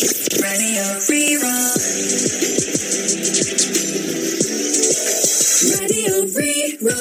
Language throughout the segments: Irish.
Radio Rí-Rá. Radio Rí-Rá.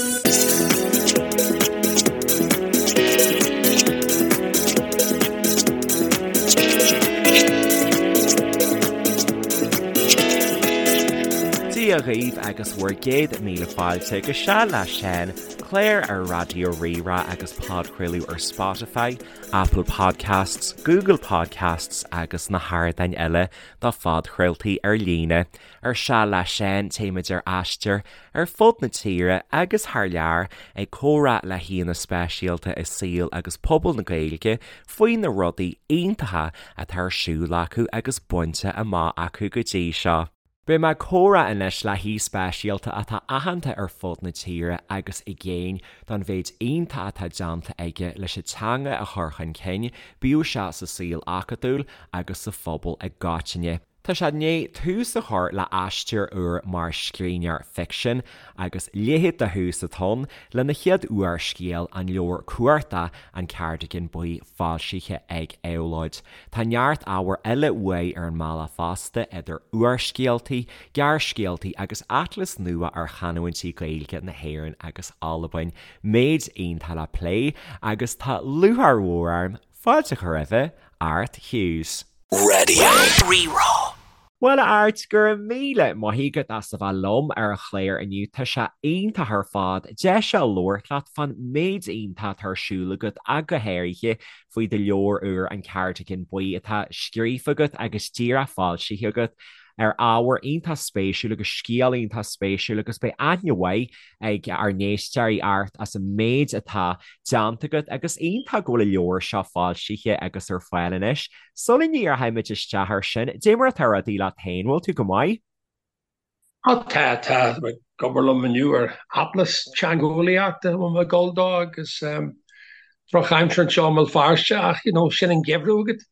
Dia dhaoibh agus bhur gcéad míle fáilte go Seal le Seán, clár ar Raidió Rí-Rá agus podchraoladh ar Spotify, Apple Podcasts, Google Podcasts agus na hardáin eile do phodchraoltaí ar líne. Ar Seal le Seán téimid ar aistear ar fud na tíre agus thar lear ag comhrá le haíonna speisialta i saol agus pobal na Gaeilge faoi na rudaí iontacha atá ar siúl acu agus bainte amach acu go dtí seo. Beidh mé ag comhrá anois le haoi speisialta atá aitheanta ar fud na tíre agus i gcéin don mhéid iontach atá déanta aige leis an teanga a chur chun cinn, bíodh sé sa saol acadúil agus sa phobal i gcoitinne. Tá sé i ndiaidh tús a chur le aistear úr mar scríbhneoir ficsin agus leithéid de thús atá ann lena chéad úrscéal, an leabhar cuarta An Cardigan Buí foilsithe ag Éabhlóid. Tá neart ábhair eile uaidh ar an mbealach fosta, idir úrscéaltaí, gearrscéaltaí agus atlas nua ar chanúintí Gaeilge na hÉireann agus Albain. Méid iontach le plé agus tá lúcháir mhór orm fáilte a chur roimhe, Art Hughes. Radio Rí-Rá. Bhuel a Airt, go raibh míle maith agat as a bheith liom ar an chlár inniu. Tá sé iontach ar fad deis a labhairt leat fán méid iontach atá ar siúl agat ach go háirithe faoi do leabhar úr An Cardigan Buí atá scríofa agat agus díreach foilsithe agat ar ábhar iontach spéisiúil agus scéal iontach spéisiúil agus beidh aithne mhaith ag ár n-éisteoirí ort as an méid atá déanta agat agus iontach go bhfuil an leabhar seo foilsithe agus ar fáil anois. Sula ndíreoimid isteach air sin, dé mar atá rudaí leat féin, bhfuil tú go maith? Á tá, tá. Tá mé ag obair liom inniu ar atlas teangeolaíochta a bhfuil mé ag dul dó agus drochaimsir anseo i mBéal Feirste ach you know sin an geimhreadh agat.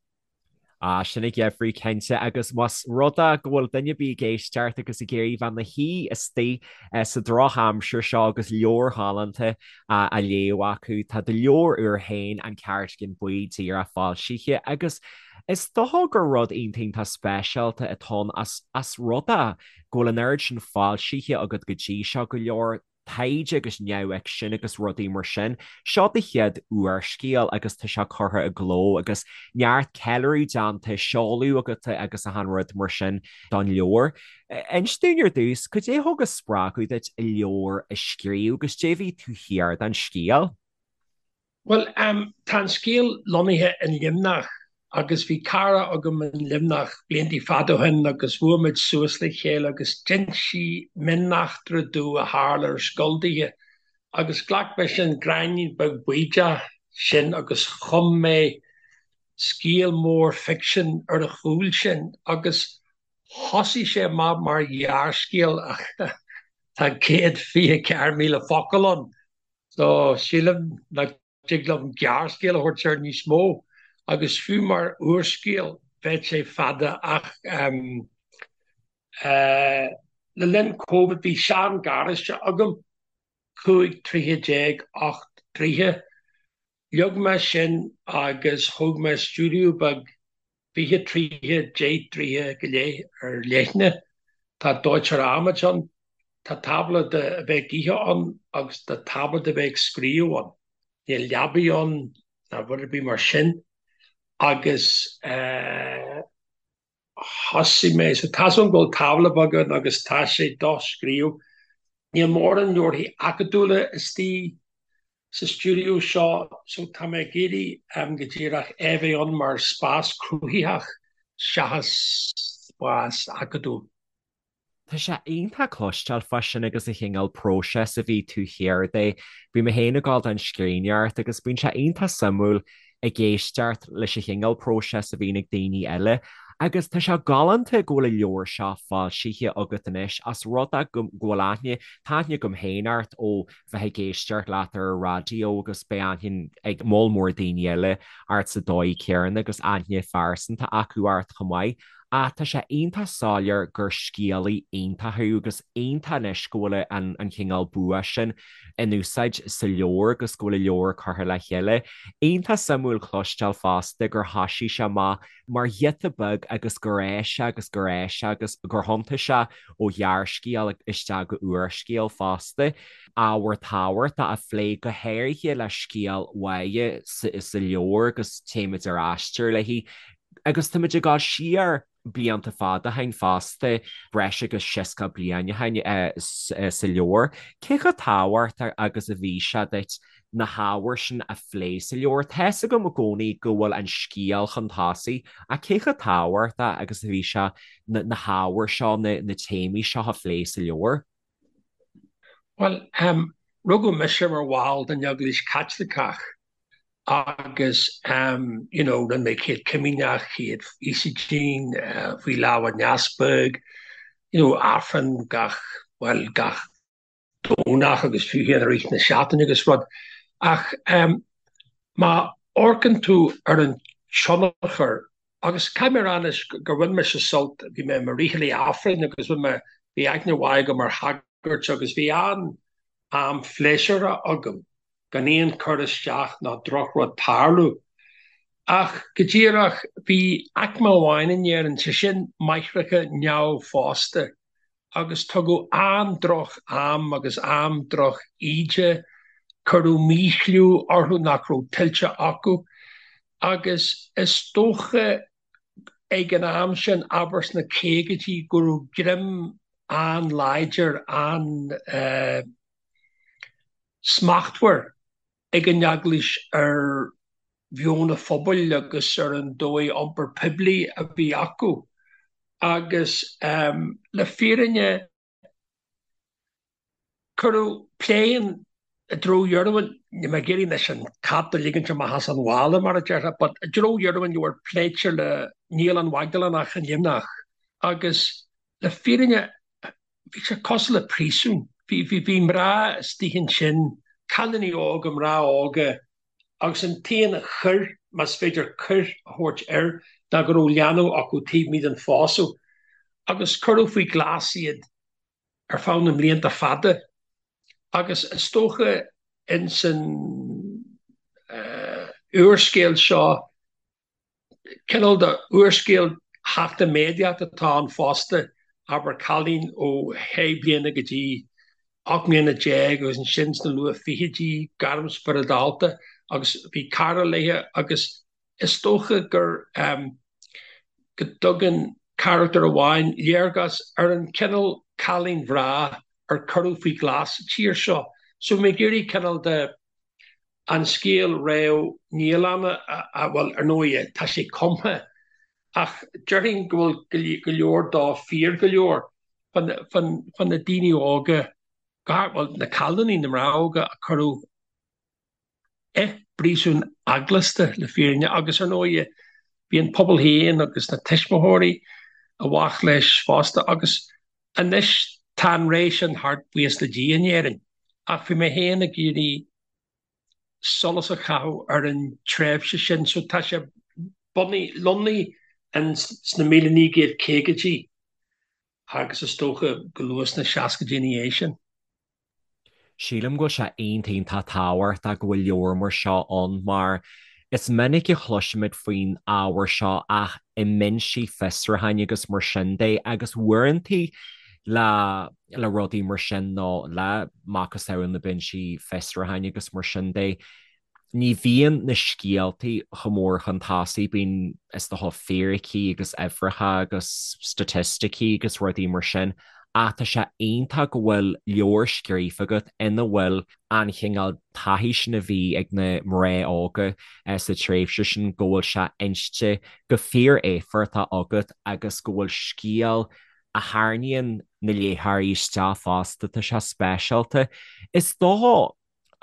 Ah, sin an geimhreadh cinnte agus más rud é go bhfuil duine ar bith ag éisteacht agus ag iarraidh bheith ina shuí istigh sa drochaimsir seo agus leabhar ghalánta á léamh acu, tá do leabhar úr féin, An Cardigan Buí, díreach foilsithe agus is dócha gur rud iontach iontach speisialta atá ann as as rud é go bhfuil an oiread sin foilsithe agat go dtí seo, go leor taighde agus neamhfhicsean agus rudaí mar sin. Seo do chéad úrscéal agus tá sé curtha i gcló agus neart ceiliúradh déanta, seoladh agat agus achan rud mar sin don leabhar. Inis dúinn ar dtús, cad é a thug an spreagadh duit an leabhar a scríobh agus dé bhí taobh thiar den scéal? Bhuel, tá an scéal lonnaithe in Luimneach agus bhí cara agam in Luimneach blianta fada ó shin agus bhuail muid suas le chéile agus d'inis sí mioneachtra domh a tharla ar scoil daoithe agus ghlac mise an gráinnín beag baoideach sin agus chum mé scéal mór ficsin ar a chúl sin agus thosaigh sé amach mar ghearrscéal ach tá 124,000 focal ann. So, sílim nach dtig liom gearrscéal a thabhairt air níos mó, agus fiú mar úrscéal bheadh sé fada ach le linn Covid bhí sean-gharáiste agam, 15 troithe, 8 dtroithe. Leag mé sin agus thóg mé stiúideo beag 20 troithe, 10 dtroithe go leith ar leithne. Tá dóiteoir adhmaid ann, tá tábla do a bheith ag ithe ann agus tá tábla do bheith ag scríobh ann. Níl leabaidh ann ná rud ar bith mar sin agus thosaigh mé, so tá's agam go bhfuil tábla beag ann agus tá sé do scríobh. Níl mórán leabharthaí acadúla istigh sa stiúideo seo so tá mé ag iarraidh go díreach é a bheith ann mar spás cruthaitheach seachas spás acadúil. Tá sé iontach cloisteáil fá sin agus an chineál próiseas a bhí taobh thiar de. Bhí mé féin ag gabháil don scríbhneoireacht agus bíonn sé iontach suimiúil ag éisteacht leis an chineál próiseas a bhíonn ag daoine eile. Agus tá sé galánta go bhfuil an leabhar seo foilsithe agat anois as rud é go bhfuil aithne, tá aithne agam féin ort ó bheith ag éisteacht leat ar an raidió agus beidh aithne ag moll mór daoine eile ort sa dóigh chéanna agus aithne phearsanta acu ort chomh maith. Ach tá sé iontach soiléir gur scéalaí iontach thú agus iontach anois go bhfuil an an chineál bua sin in úsáid sa leabhar agus go bhfuil an leabhar curtha le chéile. Iontach suimiúil cloisteáil fosta gur thoisigh sé amach mar ghiota beag agus gur fhás sé agus gur fhás sé agus gur thiontaigh sé ó ghearrscéal isteach go úrscéal fosta. Ábhar tábhachtach a phlé go háirithe le scéal Mháire sa leabhar agus téimid ar aistear léi. Agus táimid ag dul siar blianta fada ó shin fosta, breis agus 60 bliain ó shin sa leabhar. Cé chomh tábhachtach agus a bhí sé duit na hábhair sin a phlé sa leabhar? Tá's agam i gcónaí go bhfuil an scéal chun tosaigh, ach cé chomh tábhachtach agus a bhí sé na hábhair seo, na téamaí seo a phlé sa leabhar? Bhuel, rugadh mise mar bhall den Eaglais Chaitliceach agus you know rinne mé Céad Comaoineach, Chéad Íosóidín, faoi lámh an Easpaig, you know Aifreann gach, bhuel gach Domhnach agus fiú féin i rith na seachtaine agus rud. Ach má amharcann tú ar an tionchar, agus caithfidh mé a rá anois gur bhain mise sult, bhí mé i mo fhriothálaí Aifrinn agus bhain mé, bhí aithne mhaith agam ar shagairt agus bhí an-am phléisiúrtha agam gan aon cur isteach ná drochrud tarlú. Ach go díreach, bhí aicme amháin in Éirinn, sé sin máithreacha neamhphósta, agus tugadh an-droch am agus an-droch íde, cuireadh míchliú orthu nach raibh tuillte acu, agus is dócha ag an am sin, abair sna caogaidí, go raibh greim an-láidir, an-. smachtmhar ag an Eaglais ar mheon an phobail agus ar an dóigh iompar poiblí a bhí acu agus le fírinne cuireadh plé i dtreo dheireadh an, níl mé ag iarraidh anois an cat a ligint amach as an mhála mar a déarfá, but i dtreo dheireadh an leabhair pléitear le Naíolann Mhaigdiléanach i Luimneach agus le fírinne Bhí sé cosúil le príosún. Bhí, bhí, bhí mná istigh ansin, cailíní óga, mná óga, agus an t-aon choir, más féidir coir a thabhairt air, ná go raibh leanbh acu taobh amuigh den phósadh. Agus cuireadh faoi ghlas iad ar feadh na mblianta fada. Agus is dócha ins an úrscéal seo, Cineál de úrscéal chachtaméadaíocht atá ann fosta, abair cailín ó shé bliana go dtí 18 mbliana agus ansin sna luath fichidí, gairm spioradálta agus bhí cara léi agus is dócha gur go dtugann carachtar amháin léargas ar an chineál cailín bhreá ar cuireadh faoi ghlas sa tír seo. So bhí mé ag iarraidh cineál de an scéal réidh naíolanna, bhuel, ar ndóigh, tá sé cumtha, ach déarfainn go bhfuil go leor dó fíor go leor fá na daoine óga, bhuel, na cailíní, na mná óga a cuireadh i bpríosún eaglasta, le fírinne, agus ar ndóigh, bhí an pobal féin agus na tuismitheoirí i bhfách leis fosta, agus anois tá an ré sin thart, buíochas le Dia, in Éirinn, ach bhí mé féin ag iarraidh solas a chaitheamh ar an tréimhse sin. So tá sé bunaithe, lonnaithe sna 1950idí agus is dócha go luath sna seascaidí ina dhiaidh sin. Sílim go bhfuil sé iontach iontach tábhachtach go bhfuil leabhar mar seo ann mar is minic a chloisimid faoin ábhar seo ach i mbinsí fiosrúcháin agus mar sin de agus uaireanta le le rudaí mar sin nó le macasamhail na binsí fiosrúcháin agus mar sin de. Ní bhíonn na scéaltaí chomh mór chun tosaigh, bíonn is dócha fíricí agus uimhreacha agus staitisticí agus rudaí mar sin ach tá sé iontach go bhfuil leabhar scríofa agat ina bhfuil an chineál taithí sin a bhí ag na mná óga sa tréimhse sin, go bhfuil sé inste go fíor-éifeachtach agat agus go bhfuil scéal a tharraingíonn na léitheoirí isteach fosta, tá sé speisialta. Is dócha,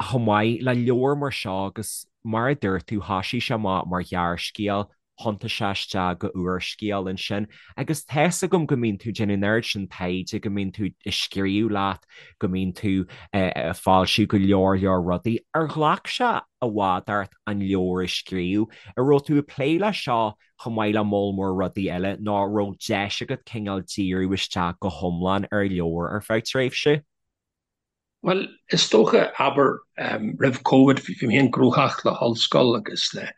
chomh maith le leabhar mar seo agus mar a dúirt tú, thoisigh sé amach mar ghearrscéal. Thiontaigh sé isteach go úrscéal ansin agus tá's agam go mbíonn tú ag déanamh an oiread sin taighde, go mbíonn tú ag scríobh leat, go mbíonn tú ag foilsiú go leor leor rudaí. Ar ghlac sé i bhfad ort an leabhar a scríobh? An raibh tú ag plé leis seo chomh maith le moll mór rudaí eile nó an raibh deis agat cineál díriú isteach go hiomlán ar leabhar ar feadh tréimhse? Bhuel, is dócha, abair, roimh Covid, bhí mé féin gnóthach le hollscoil agus le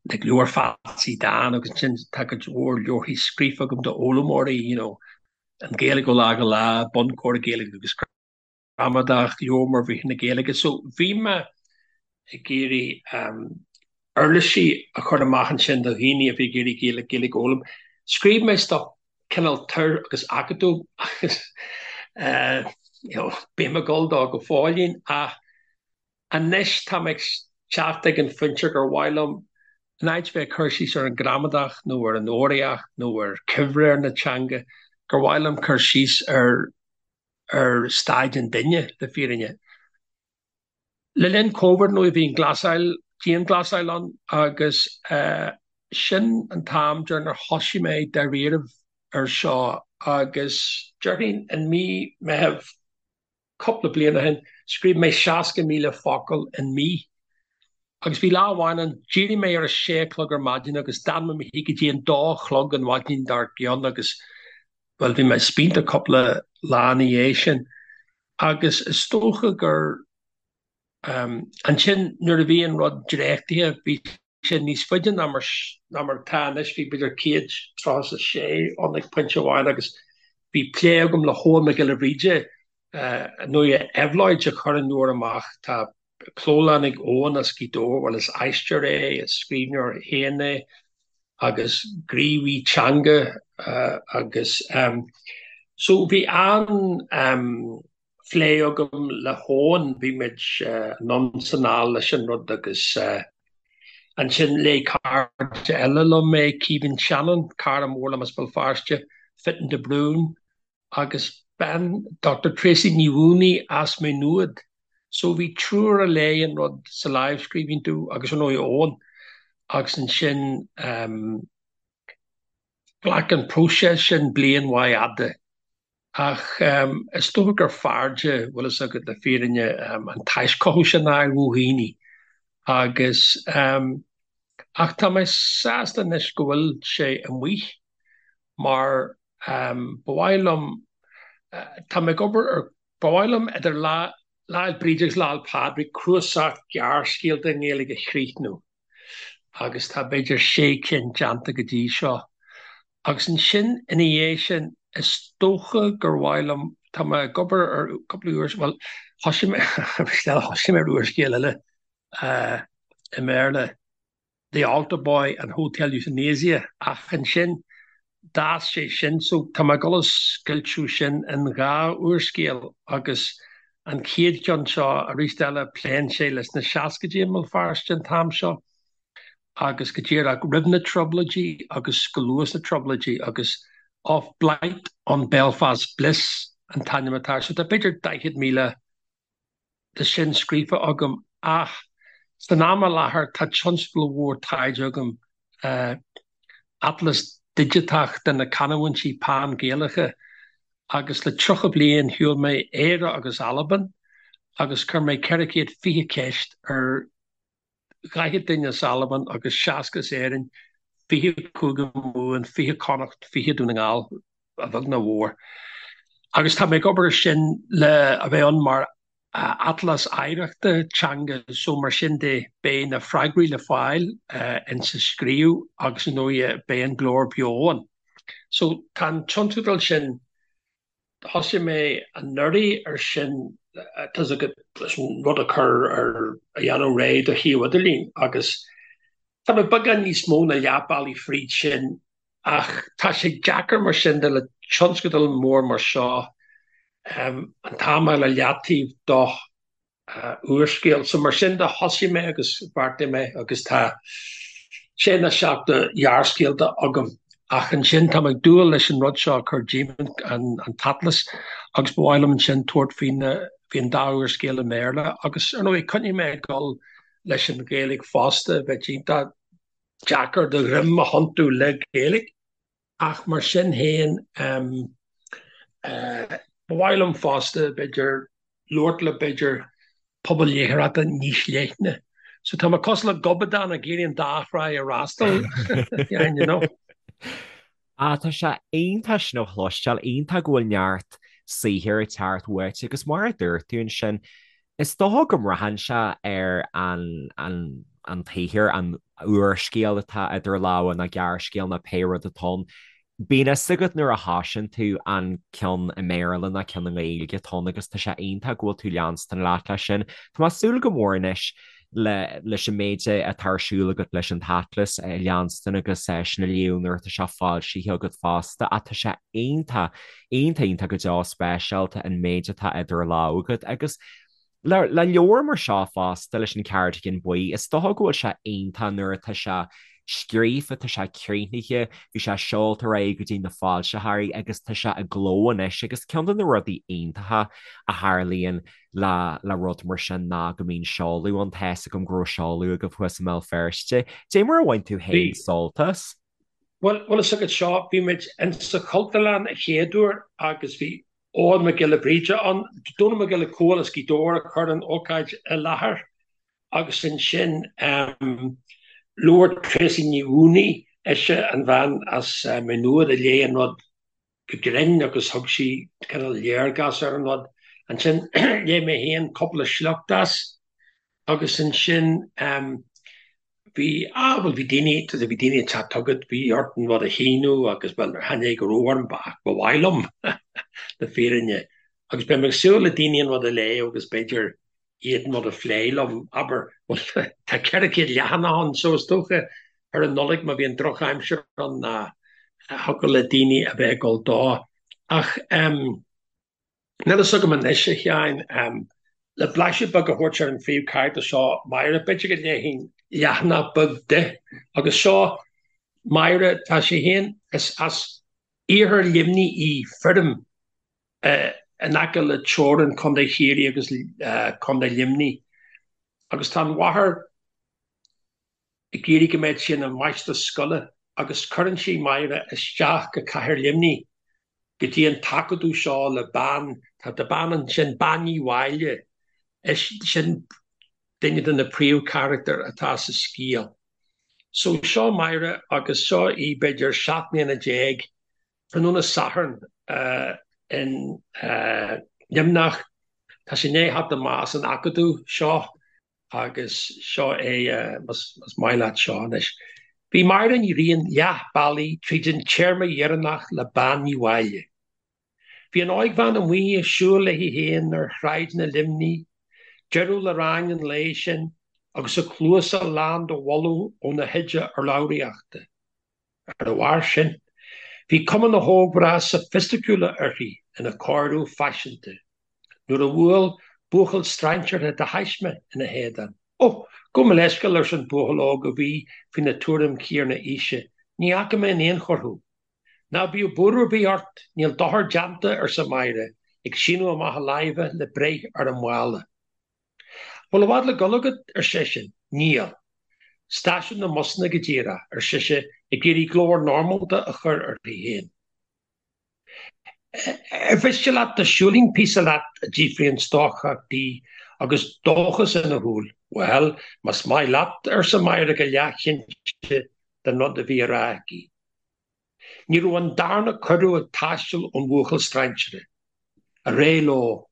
leabhar Phatsy Dan agus ansin tá cuid mhór leabharthaí scríofa agam d'fhoghlaimeoirí, you know, an Ghaeilge ó lá go lá, Bunchór Gaeilge agus Gramadach, Leabhar Mór Bhriathra na Gaeilge. So bhí mé ag iarraidh uirlisí a chur amach ansin do dhaoine a bhí ag iarraidh Gaeilge a fhoghlaim. Scríobh mé stuff cineál tur agus acadúil agus you know bím ag dul dó go fóillín ach anois tá mé ag teacht ag an phointe gur mhaith liom in áit bheith ag cur síos ar an gramadach nó ar an fhoghraíocht nó ar chuibhréir na teanga gur mhaith liom cur síos ar ar staid an duine le fírinne. Le linn Covid nó bhí an ghlasáil, dianghlasáil ann agus sin an t-am deireanach thosaigh mé dáiríribh ar seo agus déarfainn in mí Meitheamh cúpla bliain ó shin scríobh mé 60,000 focal in mí agus bhí lá amháin ann d'éirigh mé ar a sé a chlog ar maidin agus d'fhan mé i mo shuí go dtí an dó a chlog an mhaidin dár gcionn agus bhuel bhí mé spíonta cúpla lá ina dhiaidh sin. Agus is dócha gur ansin nuair a bhí an rud dréachtaithe, bhí sé níos faide ná mar ná mar atá anois, bhí b'fhéidir 136 ann ag pointe amháin agus bhí plé agam le hEoghan Mac Giolla Bhríde, nó Éabhlóid a chuir an leabhar amach. Tá clólann ag Eoghan as Gaoth Dobhair, bhuel is aisteoir é, is scríbhneoir féin é agus gníomhaí teanga agus so bhí an-phlé agam le hEoghan, bhí muid anonn is anall leis an rud agus ansin léigh cairde eile liom é, Caoimhín Shannon, cara mór liom as Béal Feirste, Fitton de Brún, agus bean Dr Tracey Ní Mhaonaigh as Maigh Nuad. So bhí triúr a léigh an rud sa lámhscríbhinn domh agus ar ndóigh Eoghan agus ansin ghlac an próiseas sin bliain mhaith fhada. Ach is dócha gur fearrde, bhfuil fhios agat, le fírinne an taischothú sin a fháil ó dhaoine agus ach tá mé sásta anois go bhfuil sé amuigh mar ba mhaith liom, tá mé ag obair ar, ba mhaith liom idir Lá Fhéile Bríde agus Lá Fhéile Pádraig cnuasach gearrscéalta i nGaeilge a chríochnú agus tá b'fhéidir sé cinn déanta go dtí seo. Agus ansin ina dhiaidh sin is dócha gur mhaith liom, tá mé ag obair ar cúpla úrs, bhuel thosaigh mé, thosaigh mé ar úrscéal eile i mBéarla. The Altar Boy and Hotel Euthanasia ach ansin d'fhás sé sin so tá mé ag dul a scoilteadh sin in dhá úrscéal agus an chéad cheann seo arís eile pléann sé leis na seascaidí i mBéal Feirste an t-am seo agus go díreach roimh na Trioblóidí agus go luath sna Trioblóidí agus Of Blight on Belfast Bliss an t-ainm atá air so tá b'fhéidir 40,000 de sin scríofa agam ach san am i láthair tá tionscadal mhór taighde agam, atlas digiteach de na canúintí pan-Ghaelacha agus le 30 bliain shiúil mé Éire agus Albain agus chuir mé 420 ceist ar 40 duine as Albain agus 60 as Éirinn, 20 Cúige Mumhan, 20 Connacht, 20 Dún na nGall, a bheag nó a mhór. Agus tá mé ag obair ar sin le a bheith ann mar atlas oidhreachta teanga so mar sin de beidh na freagraí le fáil insa scríobh agus ar ndóigh beidh an glór beo ann. So tá an tionscadal sin Thosaigh mé anuraidh ar sin, tá's agat, leis an rud a chur ar, a dhéanamh réidh do shuíomh idirlín agus tá mé beagán níos mó ná leath bealaigh fríd sin ach tá sé deacair mar sin de le tionscadal mór mar seo an t-am a fháil ar leataobh do úrscéal. So mar sin de thosaigh mé agus bheartaigh mé agus tá sé nó seacht de ghearrscéalta agam ach ansin tá mé ag dúil leis an rud seo a chur díom, an t-atlas, agus ba mhaith liom ansin tabhairt faoi na, faoi an dá úrscéal i mBéarla agus ar ndóigh coinneoidh mé ag dul leis an Ghaeilge fosta, bheadh iontach. deacair do dhroim a thiontú le Gaeilge ach mar sin féin ba mhaith liom fosta b'fhéidir labhairt le b'fhéidir pobal léitheoireachta níos leithne. So tá mé cosúil le gobadán ag iarraidh an dá thrá a fhreastal, you know. Ah, tá sé iontach sin a chloisteáil, iontach go bhfuil neart saothair ag teacht uait agus mar a dúirt tú ansin, is dócha go mbraitheann sé ar an, an, an tsaothar, an úrscéal atá idir lámha nó gearrscéal nó pé rud atá ann. Bíonn fhios agat nuair a thosaíonn tú an ceann i mBéarla nó ceann i nGaeilge atá ann agus tá sé iontach go bhfuil tú leanstan leat leis sin. Tá mé ag súil go mór anois le leis an méid atá ar siúl agat leis an t-atlas a leanstan agus sin a léamh nuair atá sé foilsithe agat fosta ach tá sé iontach, iontach, iontach go deo speisialta an méid atá idir lámha agat agus le le leabhar mar seo fosta leis an Cardigan Buí is dócha go bhfuil sé iontach nuair atá sé scríofa, tá sé críochnaithe, bhí sé seolta ar aghaidh go dtí na foilsitheoirí agus tá sé i gcló anois agus ceann de na rudaí iontacha a tharlaíonn le le rud mar sin ná go mbíonn seoladh ann, tá fhios agam go raibh seoladh agaibh thuas i mBéal Feirste. Dé mar a bhain tú féin sult as? Bhuel, bhfuil fhios agat seo, bhí muid in sa Chultúrlann a chéad uair agus bhí Eoghan Mac Giolla Bhríde ann, Dónall Mac Giolla Cóil as Gaoth Dobhair a chuir an ócáid i láthair agus ansin labhair Tracey Ní Mhaonaigh, ise an bhean as Maigh Nuad a léigh an rud go grinn agus thug sí cineál léargas ar an rud. Ansin léigh mé féin cúpla sliocht as agus ansin bhí, ah bhuel bhí daoine, bhí daoine ag teacht chugat, bhí ort an rud a shíniú agus bhuel chan é go raibh orm ach ba mhaith liom le fírinne. Agus beidh mé ag súil le daoine an rud a léamh agus b'fhéidir iad an rud a phlé liom, abair, bhuel, tá 400 leathanach ann so is dócha ar an Nollaig má bhíonn drochaimsir ann ná thiocfadh le daoine a bheith ag dul dó. Ach níl fhios agam anois, a Sheáin, le blaiseadh beag a thabhairt ar an phríomhcharachtar seo, Máire, b'fhéidir go léifinn leathanach beag di. Agus seo Máire, tá sí féin, is as iarthar Luimnigh í, Feirm in aice le teorainn Chontae Chiarraí agus Contae Luimnigh agus tá an mháthair ag iarraidh go mbeadh sí ina máistreás scoile agus cuireann sí Máire isteach go cathair Luimnigh go dtí an t-acadamh seo le bean, tá bean ansin, Bean Ní Mháille, is sin duine de na príomhcharachtair atá sa scéal. So seo Máire agus seo í b'fhéidir 17 mbliana Tráthnóna Sathairn in Luimneach. Tá sí i ndiaidh theacht amach as an acadamh seo agus seo é más maith leat seo anois. Bhí Máire Ní Riain leath bealaigh tríd an téarma dheireanach le Bean Ní Mháille. Bhí an óigbhean amuigh ag siúl léi féin ar shráideanna Luimnigh, deireadh le rang an lae sin agus a cluasa lán de bholadh óna hoide urlabhraíochta. Ar a bharr sin, bhí cuma na hógmhná sofaisticiúla uirthi ina cóiriú faiseanta nuair a bhuail buachaill strainséartha de thaisme ina héadan. Ó, gabh mo leithscéal, arsa an buachaill óg a bhí faoina tuairim chéanna aoise, ní fhaca mé in aon chor thú. Ná bíodh buaireamh ar bith ort, níl dochar déanta, arsa Máire, ag síneadh amach a láimhe le breith ar an mhála. Bhfuil i bhfad le dul agat? ar seisean. Níl. Stáisiún na mbusanna go díreach, ar sise, ag iarraidh glór normálta a chur uirthi féin. Ar mhiste leat dá siúlfainn píosa leat? a d'fhiafraigh an stócach di agus dóchas ina shúil. Bhuel, más maith leat, arsa Máire go leathchinnte den rud a bhí á rá aici. Ní raibh an darna cuireadh ag taisteal ón bhuachaill strainséartha. Ar aghaidh leo.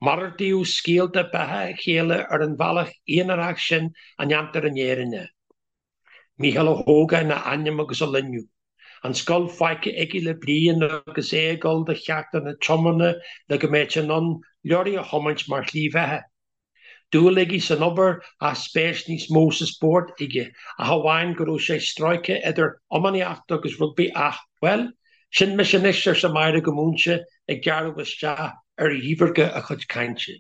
Malartaíodh scéalta beatha a chéile ar an bhealach aonarach sin a ndéantar in Éirinn é. Mícheál Ó hÓgáin a ainm agus a loinnir. An scoil fágtha aige le bliain agus é ag dul do cheachtanna tiomána le go mbeadh sé in ann leoraí a thiomáint mar shlí bheatha. Dúil aige san obair ach spéis níos mó sa spórt aige, ach amháin go raibh sé stróicthe idir iománaíocht agus rugbaí ach, bhuel, sin mise anois, arsa Máire go múinte, ag gearradh isteach ar dhíbhirce a cuid cainte.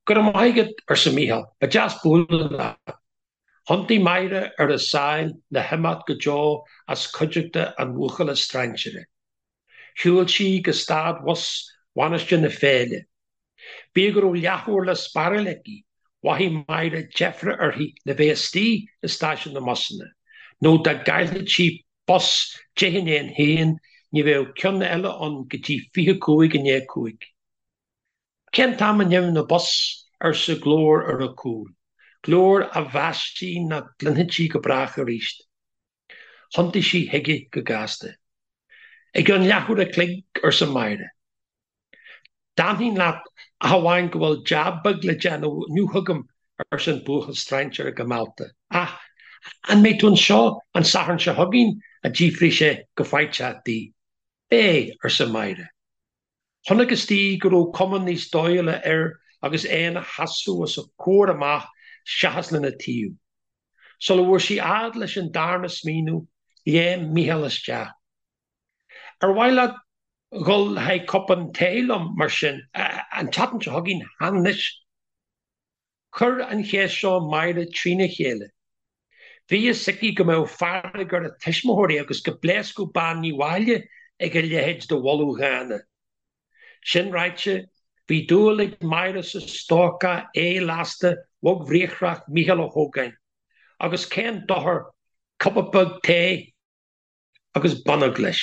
Go raibh maith agat, arsa Mícheál, ba deas bualadh leat. Thiontaigh Máire ar a sáil le himeacht go deo as cuideachta an bhuachalla strainséartha. Shiúil sí go stad bhus Mhainistir na Féile. Bíodh go raibh leathuair le spáráil aici, mhothaigh Máire deifre uirthi le bheith istigh i stáisiún na mbusanna. Nó dá gcaillfeadh sí bus 1:10, ní bheadh ceann eile ann go dtí 5:25. Cén t-am a n-imíonn an bus? arsa glór ar a cúl, glór a mheas sí nach gcluinfeadh sí go brách arís. Thiontaigh sí chuige go gasta. I gceann leathuair a chloig, arsa Máire. D'fhanfainn leat ach amháin go bhfuil jab beag le déanamh inniu agam, arsa an buachaill strainséartha go meallta. Ach an mbeidh tú anseo an Satharn seo chugainn? a d'fhiafraigh sé go faiteach di. Beidh, arsa Máire. Chonacthas di go raibh cuma níos dóighiúla air agus é ina sheasamh os a comhair amach seachas lena taobh. Sula bhfuair sí fhad leis an darna smaoineamh, léim Mícheál isteach. Ar mhaith leat dhul le haghaidh cupán tae liom, mar sin, an tseachtain seo chugainn, chan anois? Chuir an cheist seo Máire trína chéile. Bhí fhios aici go mbeadh fearg ar a tuismitheoirí agus go bpléascfadh Bean Ní Mháille ag a leithéid de mholadh dhána. Sin ráite, bhí dúil ag Máire sa stócach ae-lasta bhogbhriathrach Mícheál Ó hÓgáin, agus cén dochar cupa beag tae agus bonnóg leis.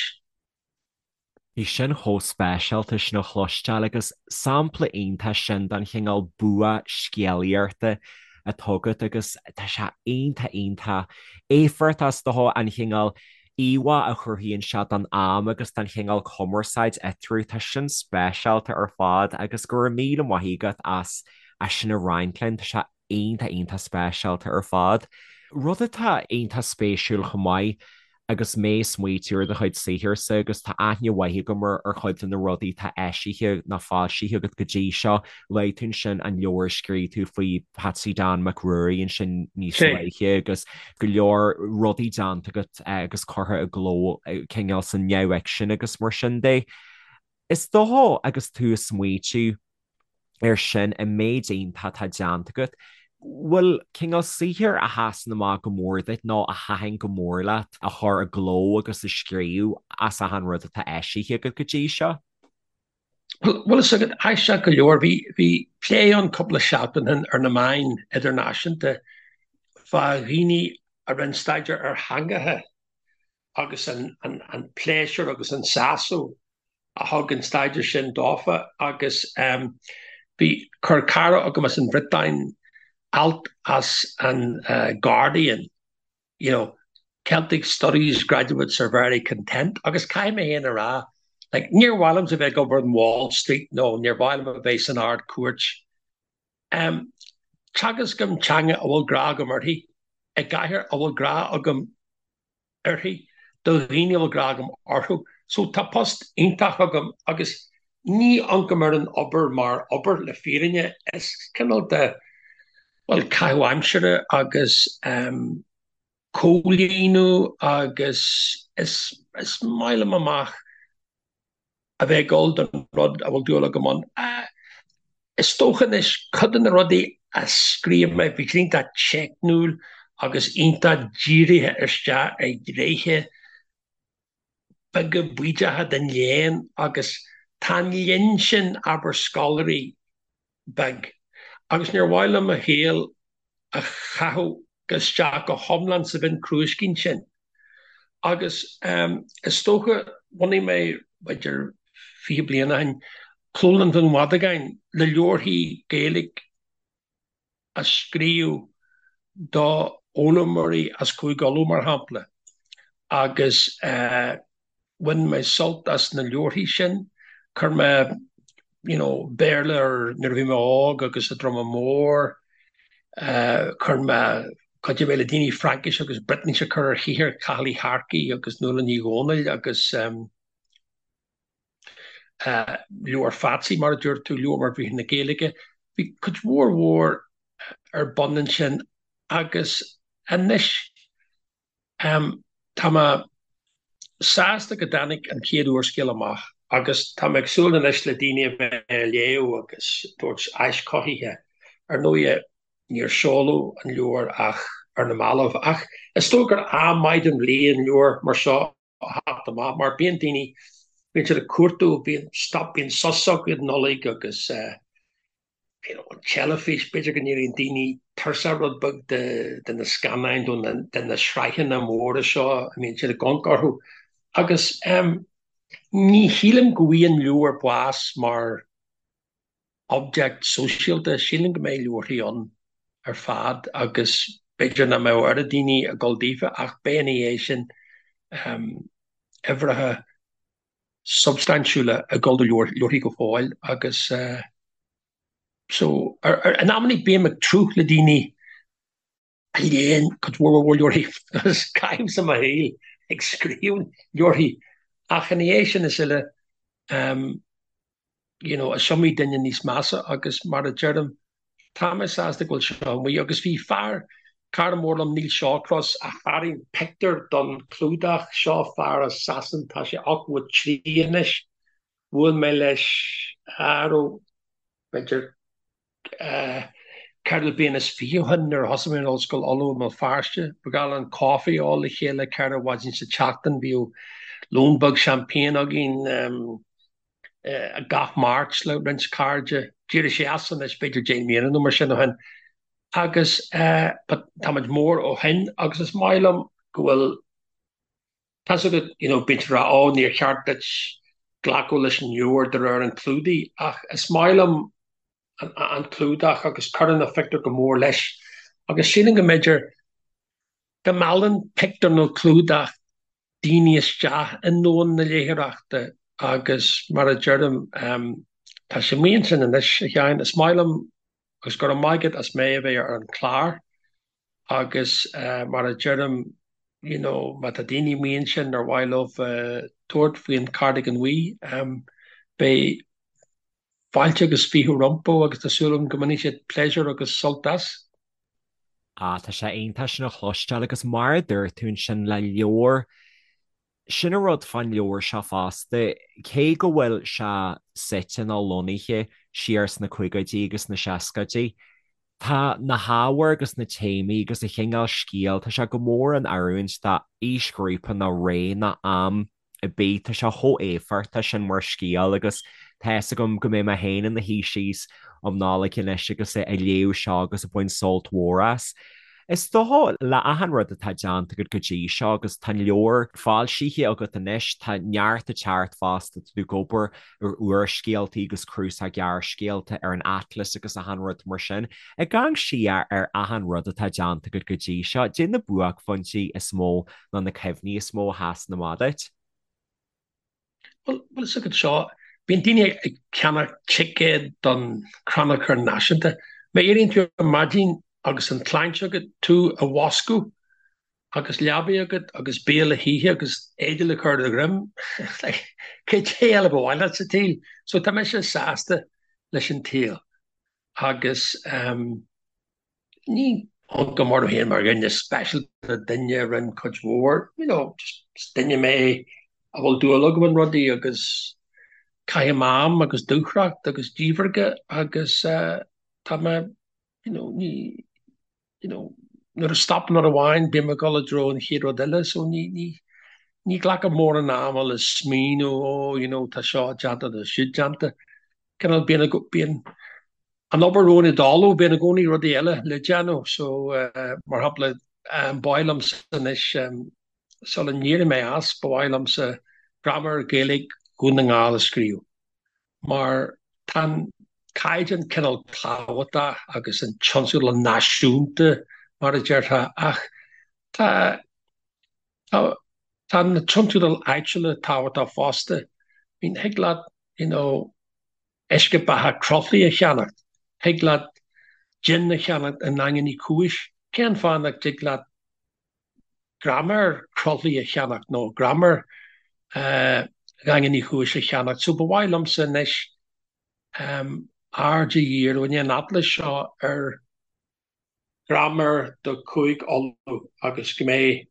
Bhí sin chomh speisialta sin a chloisteáil agus sampla iontach sin den chineál bua scéalaíochta atá agat agus tá sé iontach iontach éifeachtach is dócha an chineál íomhá a chruthaíonn sé don am agus don chineál cumarsáid eatarthu, tá sin speisialta ar fad agus go raibh míle maith agat as sin a roinnt linn, tá sé iontach iontach speisialta ar fad. Rud atá iontach spéisiúil chomh maith agus mé ag smaoitiú ar do chuid saothairse agus tá aithne mhaith agam ar ar chuid de na rudaí atá eisithe nó foilsithe agat go dtí seo, luaigh tú ansin an leabhar a scríobh tú faoi Patsy Dan Mac Ruairí ansin níos luaithe agus go leor rudaí déanta agat agus curtha i gcló cineál sa neamhfhicsean agus mar sin de. Is dócha agus tú ag smaoitiú air sin, an méid iontach atá déanta agat, bhfuil cineál saothair a sheasann amach go mór duit nó a thaitin go mór leat a chur i gcló agus a scríobh as achan rud atá eisithe agat go dtí seo? Bhuel, is agat, aisteach go leor, bhí, bhí plé ann cúpla seachtain ó shin ar na meáin idirnáisiúnta fá dhaoine a rinne staidéar ar theangacha agus an, an, an pléisiúr agus an sásamh a thug an staidéar sin dófa agus bhí, chuir cara agam as an Bhriotáin alt as an Guardian, you know, Celtic Studies graduates are very content agus caithfidh mé féin a rá, like, níor mhaith liomsa a bheith ag obair in Wall Street nó níor mhaith liom a bheith san Ard-Chúirt. Teagascaim teanga a bhfuil grá agam uirthi, i gcathair a bhfuil grá agam uirthi, do dhaoine a bhfuil grá agam orthu. So tá post iontach agam agus ní amharcaim ar an obair mar obair, le fírinne. Is cineál de, bhuel, caitheamh aimsire agus comhlíonadh agus is is maith liom amach a bheith ag dul don rud a bhfuil dúil agam ann. Is dócha anois, cuid de na rudaí a scríobh mé, bhí siad iontach teicniúil agus iontach dírithe isteach ar ghnéithe beaga bídeacha den léann agus tá an linn sin, abair, scoláirí, beag, agus níor mhaith liom mo shaol a chaitheamh isteach go hiomlán sa mhionchrúiscín sin. Agus is dócha, bhunaigh mé, b'fhéidir 20 bliain ó shin, Clólann Dhún Mhadagáin le leabharthaí Gaeilge a scríobh do fhoghlaimeoirí as Cúige Uladh, mar shampla, agus bhain mé sult as na leabharthaí sin. Chuir mé you know Béarla ar nuair a bhí mé óg agus i Droma Mór, chuir mé, chuidigh mé le daoine Fraincis agus Briotáinis a chur ar shaothar Chathail Uí Shearcaigh agus Nuala Ní Dhomhnaill agus Leabhar Phatsy, mar a dúirt tú, leabhar mar Bhriathra na Gaeilge. Bhí cuid mhór mhór ar bun ansin agus anois tá mé sásta go dtáinig an chéad úrscéal amach agus tá mé ag súil anois le daoine a bheith á léamh agus tabhairt áis chothaithe. Ar ndóighe, níor seoladh an leabhar ach ar na mallaibh ach is dóigh gur am maith den bhliain leabhar mar seo a theacht amach mar bíonn daoine, bíonn siad ag cuartú, bíonn stop, bíonn sos acu don Nollaig agus. you know, an teilifís, b'fhéidir go n-éiríonn daoine tuirseach rud beag de, de na scannáin nó de na sraitheanna móra seo a mbíonn siad ag amharc orthu. Agus em, ní shílim go bhfuigheann leabhar bás mar object sóisialta, sílim go mbeidh leabharthaí ann ar fad agus b'fhéidir nach mbeadh oiread daoine ag dul daofa ach beidh ina dhiaidh sin em, uimhreacha substaintiúla ag dul do leabharthaí go fóill agus so in amannaí bím ag tnúth le daoine a léann cuid mhór mhór leabharthaí agus caithimse mo shaol ag scríobh leabharthaí ach ina dhiaidh sin is uile you know, is iomaí duine níos measa agus mar a deirim, tá mé sásta go bhfuil seo amuigh agus bhí fear, cara mór liom, Neil Shawcross, a tharraing pictiúr don chlúdach, seo fear as Sasain, tá sé 83 anois, bhuail mé leis, aró, b'fhéidir ceithre bliana is fiche ó shin nuair a thosaigh mé in Ollscoil Uladh i mBéal Feirste. Ba ghnách linn coffee a ól le chéile ceithre mhaidin sa tseachtain. Bhíodh lón beag champagne againn gach Máirt le roinnt cairde. D'éirigh sé as anois b'fhéidir 10 mbliana nó mar sin ó shin. Agus táimid mór ó shin agus is maith liom go bhfuil Tá's agat, you know, bíonn siad ag rá, oh, níor cheart duit glacadh leis an leabhar de réir an chlúdaigh, ach is maith liom an clúdach agus cuireann an phictiúr go mór leis. Agus sílim go mb'fhéidir go meallann pictiúr nó clúdach daoine isteach i ndomhan na léitheoireachta agus mar a deirim, tá sé amuigh ansin anois, a Sheáin, is maith liom agus go raibh maith agat as mé a bheith ar an chlár. Agus mar a deirim, you know, má tá daoine amuigh ansin ar mhaith leo tabhairt faoin Cardigan Bhuí, beidh fáilte agus fiche rompu agus tá súil agam go mbainfidh siad pléisiúr agus sult as. Ah, tá sé iontach sin a chloisteáil agus mar a dúirt tú ansin le leabhar, sin an rud fán leabhar seo fosta, cé go bhfuil sé suite nó lonnaithe siar sna caogaidí agus sna seascaidí, tá na hábhair agus na téamaí agus an chineál scéil, tá sé go mór in oiriúint d'aoisghrúpa nó ré nó am ar bith, tá sé chomh éifeachtach sin mar scéal agus tá fhios agam go mbeidh mé féin ina shuí síos um Nollaig anois agus ag léamh seo agus ag baint sult mhór as. Is dócha, le achan rud atá déanta agat go dtí seo, agus tá an leabhar foilsithe agat anois, tá neart ag teacht fosta, tá tú ag obair ar úrscéaltaí agus cnuasach gearrscéalta ar an Atlas agus achan rud mar sin. Ag amharc siar ar achan rud atá déanta agat go dtí seo, cad é na buaicphointí is mó nó na cuimhní is mó a sheasann amach duit? Bhuel, bhfuil fhios agat seo, bíonn daoine ag ceannach ticéad don Chrannchur Náisiúnta. Má éiríonn tú ar maidin agus an tsláinte agat tú a mhúscailt agus leabaidh agat agus bia le hithe agus éide le cur ar do dhroim, like, cad é eile ba mhaith leat sa tsaol? So tá mise sásta leis an tsaol agus ehm, Ní amharcaim orm féin mar dhuine speisialta, duine a rinne cuid mhór, you know, just duine mé a bhfuil dúil agam in rudaí agus caithim am agus dúthracht agus díbhirge agus tá mé, you know, ní, you know, nuair a stopann rud amháin bím ag dul i dtreo an chéad rud eile so ní, ní, ní ghlacaim mórán ama le smaoineamh, oh, you know, tá seo déanta, tá siúd déanta. Cineál bíonn, bíonn an obair romhainn i dtalamh, bíonn i gcónaí rudaí eile le déanamh so mar shampla ba mhaith liomsa anois sula n-éireoidh mé as ba mhaith liomsa graiméar Gaeilge Dhún na nGall a scríobh mar tá an caighdeán cineál tábhachtach agus an tionscadal náisiúnta mar a déarfá ach tá tá tá na tionscadail áitiúla tábhachtach fosta. I mean thig leat you know uisce beatha Croithlí a cheannacht, thig leat jin a cheannacht i nDaingean Uí Chúis, cén fáth nach dtig leat graiméar Chroithlí a cheannacht nó graiméar Dhaingean Uí Chúis a cheannacht? So ba mhaith liomsa anois aird a dhíriú i ndiaidh an atlais seo ar graiméar do Chúige Uladh agus go mbeidh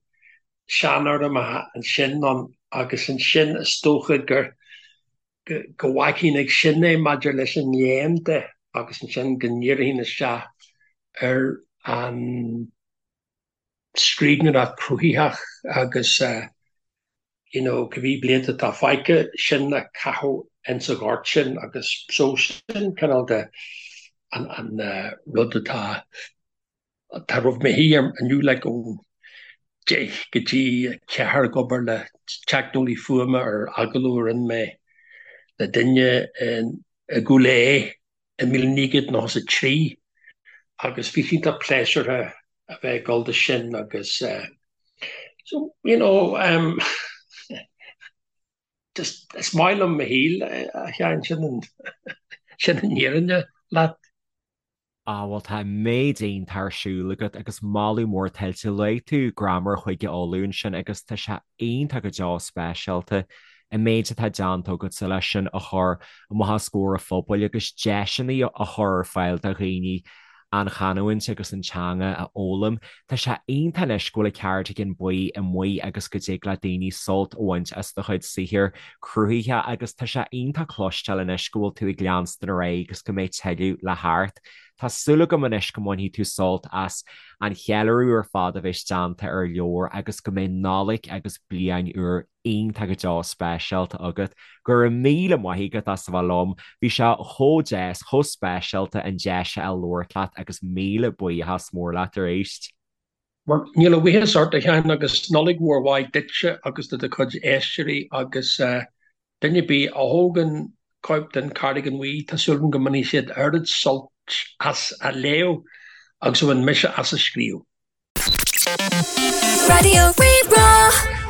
seanfhoirmeacha ansin ann agus ansin is dócha gur go bhfágfainn ag sin é maidir leis an léann de agus ansin go ndíreofainn isteach ar an scríbhneoireacht chruthaitheach agus you know cibé blianta atá fágtha, sin a chaitheamh ins an ghort sin agus so sin cineál de. An rud atá atá roimh mo thí inniu like ón 10 go dtí 4 ag obair le teicneolaí fuaime ar agallamh a rinne mé le duine i gCúil Aodha i 1993 agus bhí sé iontach pléisiúrtha a bheith ag dul do sin agus so you know um, just is maith liom mo shaol a Sheáin, sin an sin an fhírinne leat. Ah bhuel tá an méid iontach ar siúl agat agus moladh mór tuillte. Luaigh tú Graiméar Chúige Uladh ansin agus tá sé iontach go deo speisialta an méid atá déanta agatsa leis sin a chur amach os comhair an phobail agus deiseanna a chur ar fáil do dhaoine an chanúint agus an teanga a fhoghlaim. Tá sé iontach anois go bhfuil an Cardigan Buí amuigh agus go dtig le daoine sult a bhaint as do chuid saothair cruthaithe agus tá sé iontach cloisteáil anois go bhfuil tú ag leanstan ar aghaidh agus go mbeidh tuilleadh le theacht. Tá súil agam anois go mbainfidh tú sult as an cheiliúradh ar fad a bheas déanta ar an leabhar agus go mbeidh Nollaig agus Bliain Úr iontach go deo speisialta agat. Go raibh míle maith agat as a bheith liom. Bhí sé chomh deas, chomh speisialta an deis a fháil labhairt leat agus míle buíochas mór leat arís. Bhuel, níl a bhuíochas ort, a Sheáin, agus Nollaig mhór mhaith duitse agus do do chuid éisteoirí agus duine ar bith a thógann cóip den Cardigan Bhuí, tá súil agam go mbainfidh siad oiread sult as a léamh agus a bhain mise as a scríobh. Raidió Rí-Rá.